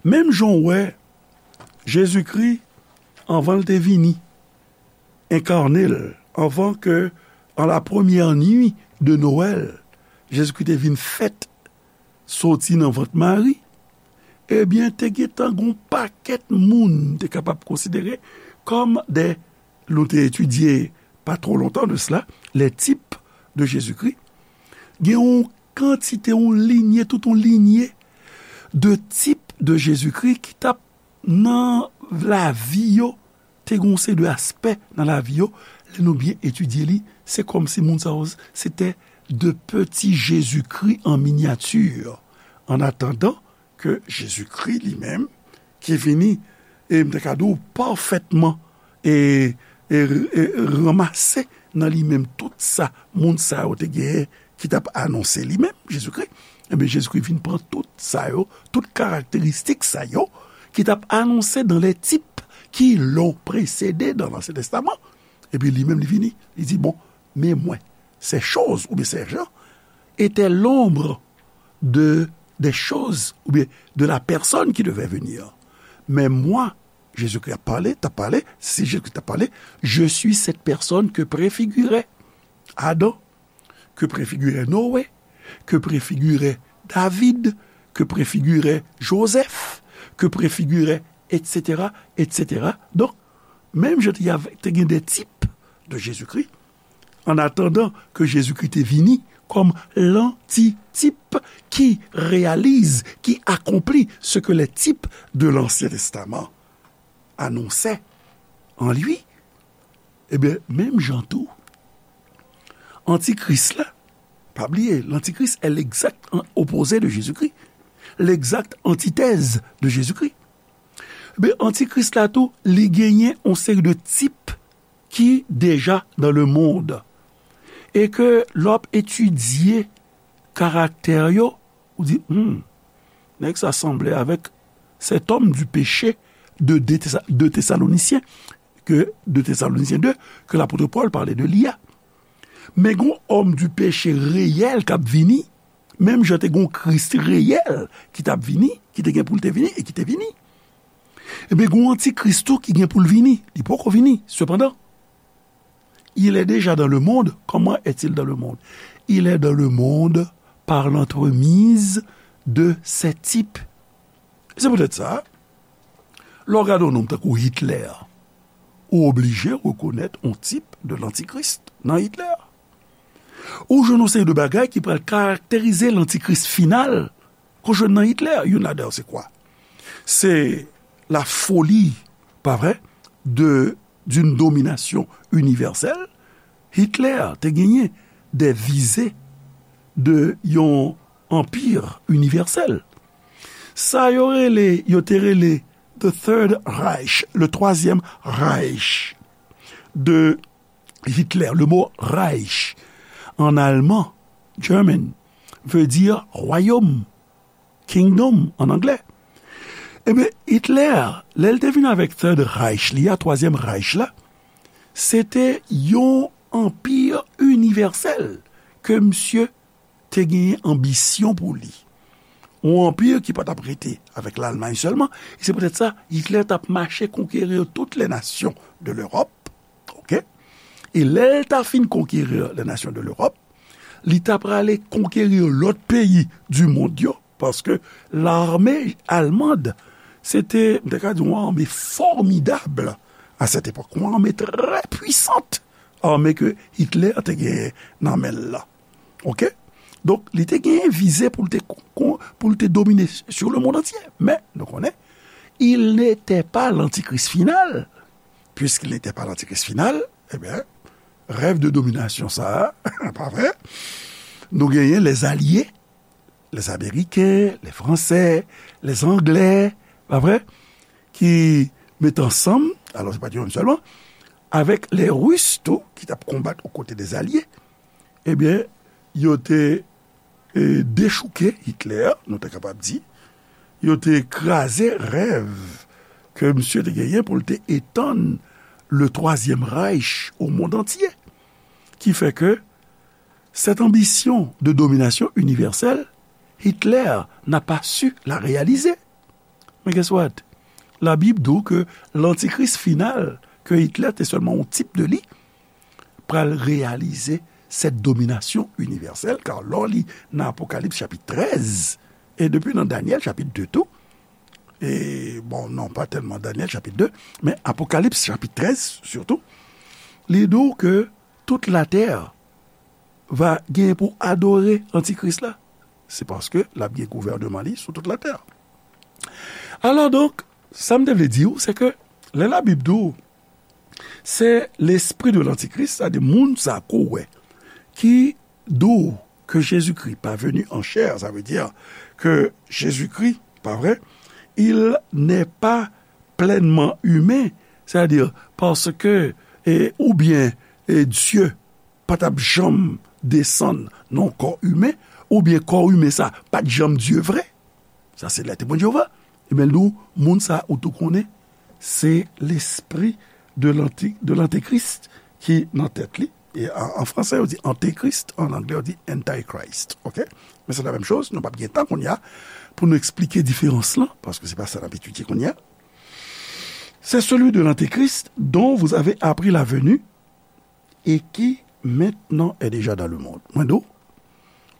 Menm jan w wè, Jezikri, anvan l te vini, enkarne l, anvan ke, an la premyè nwi de Nwèl, Jezikri te vin fèt soti nan vant Mari, ebyen, te gentan gon pakèt moun te kapab konsidere kòm de, nou te etidye pa twò lontan de sela, les types de Jésus-Christ. Gen yon kantite, yon linye, tout yon linye de type de Jésus-Christ ki t ap nan lavi yo, te gen yon seri de aspè nan lavi yo, lè nou byen etidye li, se kòmsi moun sa yo, se te de petits Jésus-Christ en miniature. En attendant que Jésus-Christ li menm, ki vini, e m te ka di w, pafètman, e, e, e ranmase nan li menm tout sa moun sa yo te genyen, ki t ap anonse li menm, Jezikri, enben, Jezikri vin pran tout sa yo, tout karakteristik sa yo, ki t ap anonse dans les types qui l'ont précédé dans l'Ancien Testament. Epi li menm, li vini, li di, bon, men mwen, ces choses, oubyen ces gens, étaient l'ombre de, des choses, oubyen de la personne qui devait venir. Mais moi, Jezikri ap pale, t ap pale, si Jezikri t ap pale, je suis cette personne que préfigurait Adam, que préfigurait Noé, que préfigurait David, que préfigurait Joseph, que préfigurait, et cetera, et cetera. Donk, menm jan te gen de type de Jésus-Christ, en attendant que Jésus-Christ te vini comme l'antitype qui réalise, qui accomplit ce que les types de l'Ancien Testament annonçaient en lui, ebyen, menm jan tou, antikris la, pa bliye, l'antichrist est l'exact an-, opposé de Jésus-Christ, l'exact antithèse de Jésus-Christ. Ebyen, antikris la tou, li genyen yon seri de type ki deja dans le monde. E ke lè w ap etidye karaktè yo, ou di, hmm, nèg sa sanble avèk cet homme du péché de, de Thessa-, de Thessaloniciens, ke de Thessaloniciens deux, ke lapot Pòl pale de li a. Men gon homme du péché réel k ap vini, menm jan te gon Kris reyèl ki t ap vini, ki te gen pou l te vini e ki te vini. Ebyen, gon antikris tou ki gen pou l vini. Li poko vini, sepandan. Il est déjà dans le monde. Comment est-il dans le monde? Il est dans le monde par l'entremise de ces types. Se poutèt sa, lè w gade yon nonm tankou Hitler, ou oblije rekonèt yon tip de l'antichrist nan Hitler. Ou jwenn yon seri de bagay ki pral karakterize l'antichrist final, ke w jwenn nan Hitler. Youn ladan yo se kwa? Se la folie, pa vre, de, d'une domination universelle. Hitler te genyen des visées de yon anpir inivèsèl. Sa yo rele, yo te rele the Third Reich, le Troisième Reich de Hitler. Le mot Reich en allemand, German, veut dire royaume, kingdom en anglais. Ebyen, Hitler, lè l te vin avèk Third Reich li a, Twazyèm Reich la, se te yon anpi inivèsèl ke misye te genyen anbisyon pou li. Yon anpi ki pa t ap rete avèk Lalmay sèlman, e se poutèt sa, Hitler t ap mache konkeri toutes les nations de l'Europe, oke? E lè l ta fin konkeri les nations de l'Europe, li ta prale konkeri lòt peyi di mond yo, paske lame almand, se te, m te ka di, yon ame fòmidab a sèt epòk, yon ame trè pwisant, ame ke Hitler te genyen nan men l la. Ok? Donk, li te genyen vize pou l te, pou l te domine sur le monde entier. Men, nou konnen, il n'était pas l'antichrist final. Puisqu'il n'était pas l'antichrist final, ebyen, rèv de dominasyon sa a, pa vre? Nou genyen lèzalye, lèzameriken, lèfransè, lèzanglè, pa vre? Ki met ansanm, alò se pa t yo menm sèlman, avèk lèris tou, ki t ap konbat okote dèzalye, ebyen, yo te e, dechouke Hitler, nou ta kapab di, yo te kraze rèv ke misye te genyen pou l te etann le Troisième Reich au monde entier. Ki fè ke cette ambition de domination universelle, Hitler n'a pas su la réaliser. Men guess what? Labib di w ke lantikris final, ke Hitler te sèlman yon tip de li, pral reyalize cette domination universelle, kar lè w li nan Apokalips chapit trèz, e depi nan Danyèl chapit de tou, e, bon, non, pa tèlman Danyèl chapit de, men Apokalips chapit trèz, sitou, li di w ke tout latè va gen pou adore antikris la. Se paske l ap gen gouvènman li sou tout latè. Alò donk, sa m te vle di w, se ke lè Labib di w, se lespri de lantikris, sa di moun sa ko wè, ki di w ke Jezikri pa venu en chair, sa vle di ke Jezikri, pa vre, il n'est pas pleinement humain, c'est-à-dire parce que, e, oubyen, e, Dye pa t ap janm desann nan yon kò imen, oubyen kò imen sa pa t janm Dye vre. Sa se lè Temwen de Jewova. Ebyen, nou, moun sa ou tou konnen, se lespri de lanti-, de lantekris ki nan tèt li. E an, an fransè, yo di antekris, an anglè, yo di antichrist. Ok? Men se la menm choz, nou p ap gen tan kounye a pou nou eksplike diferans lan, paske se pa sa n ap etidye kounye a. C'est celui de l'antéchrist dont vous avez appris la venue et qui maintenant est déjà dans le monde. Mwen di w,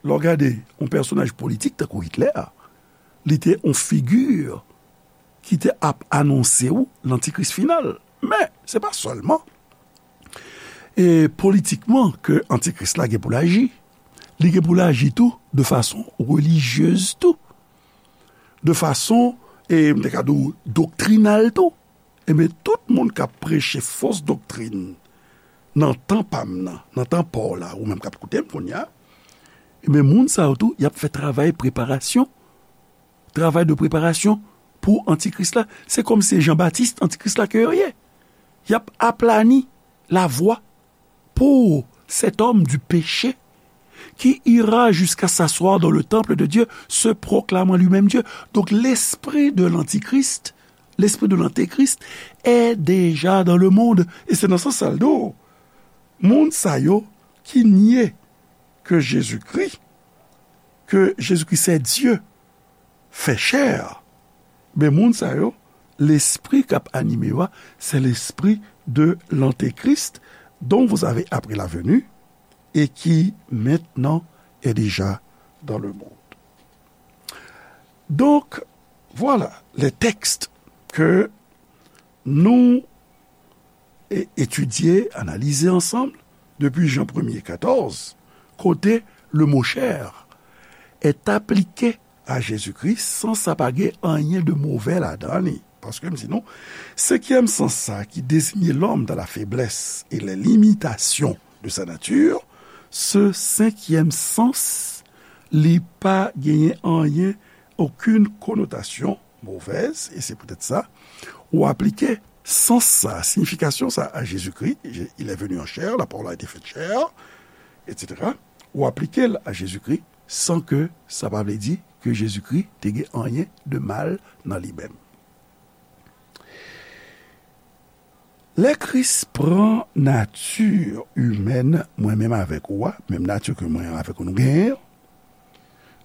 lè w gade yon pèsonaj politik tankou Hitler, li te yon figi ki te ap anonse w lantikris final. Men, se pa sèlman, e, politikman ke antikris la gen pou l aji. Li gen pou l aji tou de fason relijyez tou. De fason, e, m te ka di w, doktrinal tou. Ebyen, tout moun k ap preche fos doktrin nan tan pa m nan, nan tan pa w la, ou menm k ap koute m kounye a, ebyen, moun sa yo tou, y ap fè travay preparasyon, travay de preparasyon pou antikris la. Se kòmsi se Jan Batis, antikris la ke yo ye. Y ap aplani lavwa pour cet homme du péché qui ira jusqu'à s'asseoir dans le temple de Dieu, se proclamant lui-même Dieu. Donk, lespri de lantikris, lespri de lantekris, est déjà dans le monde. E se nan sans sa l di w, moun sa yo ki nye ke Jezikri, ke Jezikri se Dye, fè chè, men moun sa yo, lespri k ap anime yo a, se lespri de l'antéchrist dont vous avez appris la venue et qui maintenant est déjà dans le monde. Donc, voilà les textes que nou e etidye, analize ansanm depi Jan premye katòz, kote le mot chair est appliqué à Jésus-Christ san sa pa gen anyen de movè ladan li. Paske m di nou, senkyèm sans sa ki désigne l'homme dans la faiblesse et les limitations de sa nature, ce cinquième sens, li pa genyen anyen, aucune connotation mauvaise, et c'est peut-être ça, ou aplike sans sa, signification sa a Jésus-Christ, il est venu en chair, la parole a été faite chair, et cetera. Ou aplike l a Jezikri san ke sa pa vle di ke Jezikri te gen anyen de mal nan li menm. Lè Kris pran nati imèn mwen menm avèk ou a, menm nati ke mwen avèk ou nou genyen an,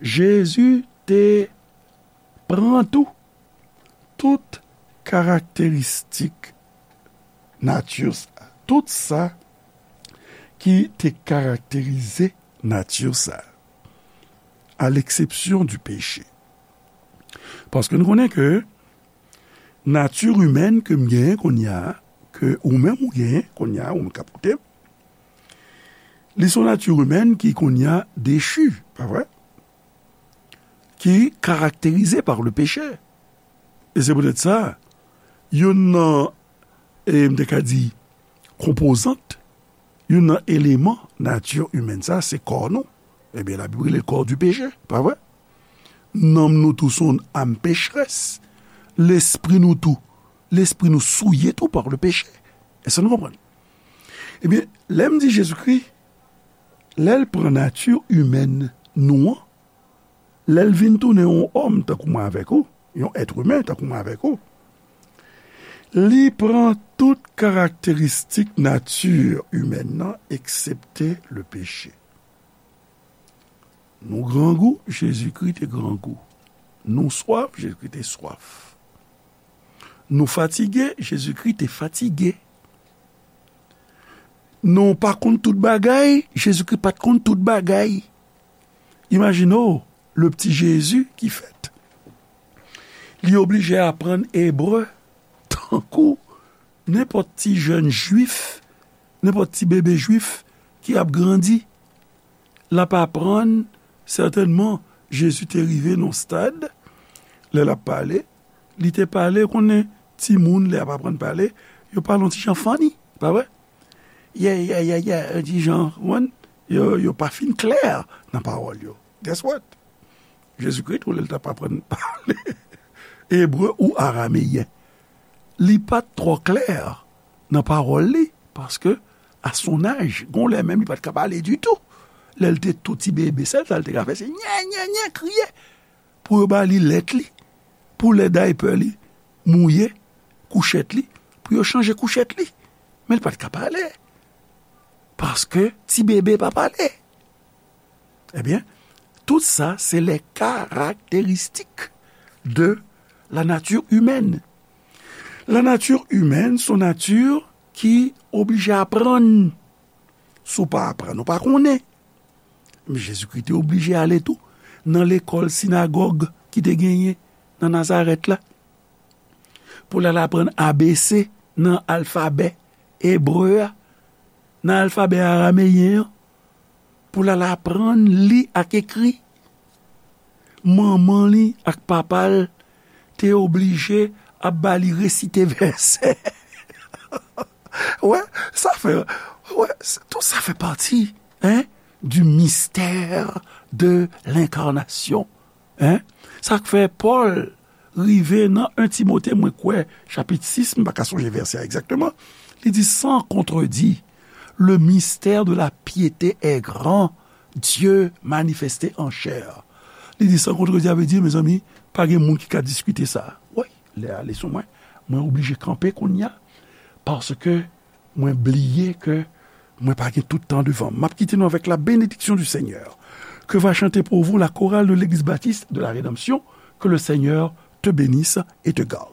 Jezi te pran tou tout karakteristik nati sa, tout sa ki te karakterize nati sa, à l'exception du péché. Paske nou konnen ke nati imèn ke m genyen kounye a, ke ou menm ou genyen kounye a, ou menm k ap koute m, Li se yon nati imèn ki kounye a dechi, pa vre? Ki karakterize pa le peche. E se poutèt sa, youn nan, e m te ka di, konpozant, youn nan eleman nati imèn sa, se kò nou. Ebyen, Labib rele l kò di peche, pa vre? Nanm nou tou se yon am pechrès. Lespri nou tou, lespri nou souye tou pa le peche. Èske nou konprann? Ebyen, lè m di Jezikri, lè l pran nati imèn nou an, lè l vin tounen yon òm tankou mwen avèk ou, yon èt imen tankou mwen avèk ou, li pran tout karakteristik nati imèn nan, eksepte le peche. Nou grangou, Jezikri te grangou. Nou swaf, Jezikri te swaf. Nou fatige, Jezikri te fatige. Nou pa konn tout bagay, Jezikri pa t konn tout bagay. Imajine w, le pti Jezi ki fèt. Li oblije aprann ebre tankou nenpòt ti jèn jwif, nenpòt ti bebe jwif ki ap grandi. L ap aprann, sètènman, Jezi te rive nan yon stad, lè l ap pale, li te pale, konnen timoun, lè y ap aprann pale, yo pale yon ti jan funny, pa vre? Yè, yè, yè, yè, yon ti jan, konprann? Yo, yo pa fin klè nan pawòl yo. Guess what? Jezikri tou, lè l t ap aprann pale ebre ou arameyen, li pa t twò klè nan pawòl li, paske, à son âge, gon lè menm li pa t ka pale ditou. Lè l te tou ti bebe, sèl sa l te ka fè, se nyè, nyè, nyè, kriye. Pou yo ba li lèt li, pou lè daypè li mouye, kouchèt li, pou yo chanje kouchèt li. Men li pa t ka pale. Paske ti bebe pa pale. Ebyen, tout sa, se les caractéristiques de la nature humaine. La nature humaine, se yon nati ki oblije aprann. Si w pa aprann, ou pa konnen. Men Jezikri te oblije ale tou nan lekòl sinagòg ki te genyen nan Nazarèt la. Pou l al aprann A B C nan alfabè ebre a, nan alfabè arameyen an, pou l al aprann li ak ekri. Manman li ak papa l te oblije ap ba li resite vèsè. Wè, sa fè, wè, tout sa fè pati, hein, du mystère de l'incarnation. Hein? Sa k fè Pòl rive nan en Timote, mwen kwè, chapit sis, m pa ka sonje vèsè a egzakteman, li di, sans contredit, le mystère de la piété est grand, Dieu manifesté en chair. Li di, sans contredit, sa vle di, mezanmi, pa gen moun ki ka diskite sa. Wi, lè a ale sou mwen, mwen oblije kanpe kounye a, paske mwen bliye ke mwen pa gen tout tan devan m. M ap kite nou avec la bénédiction du Seigneur. Que va chanter pour vous la chorale de l'Église baptiste de la Rédemption. Que le Seigneur te bénisse et te garde.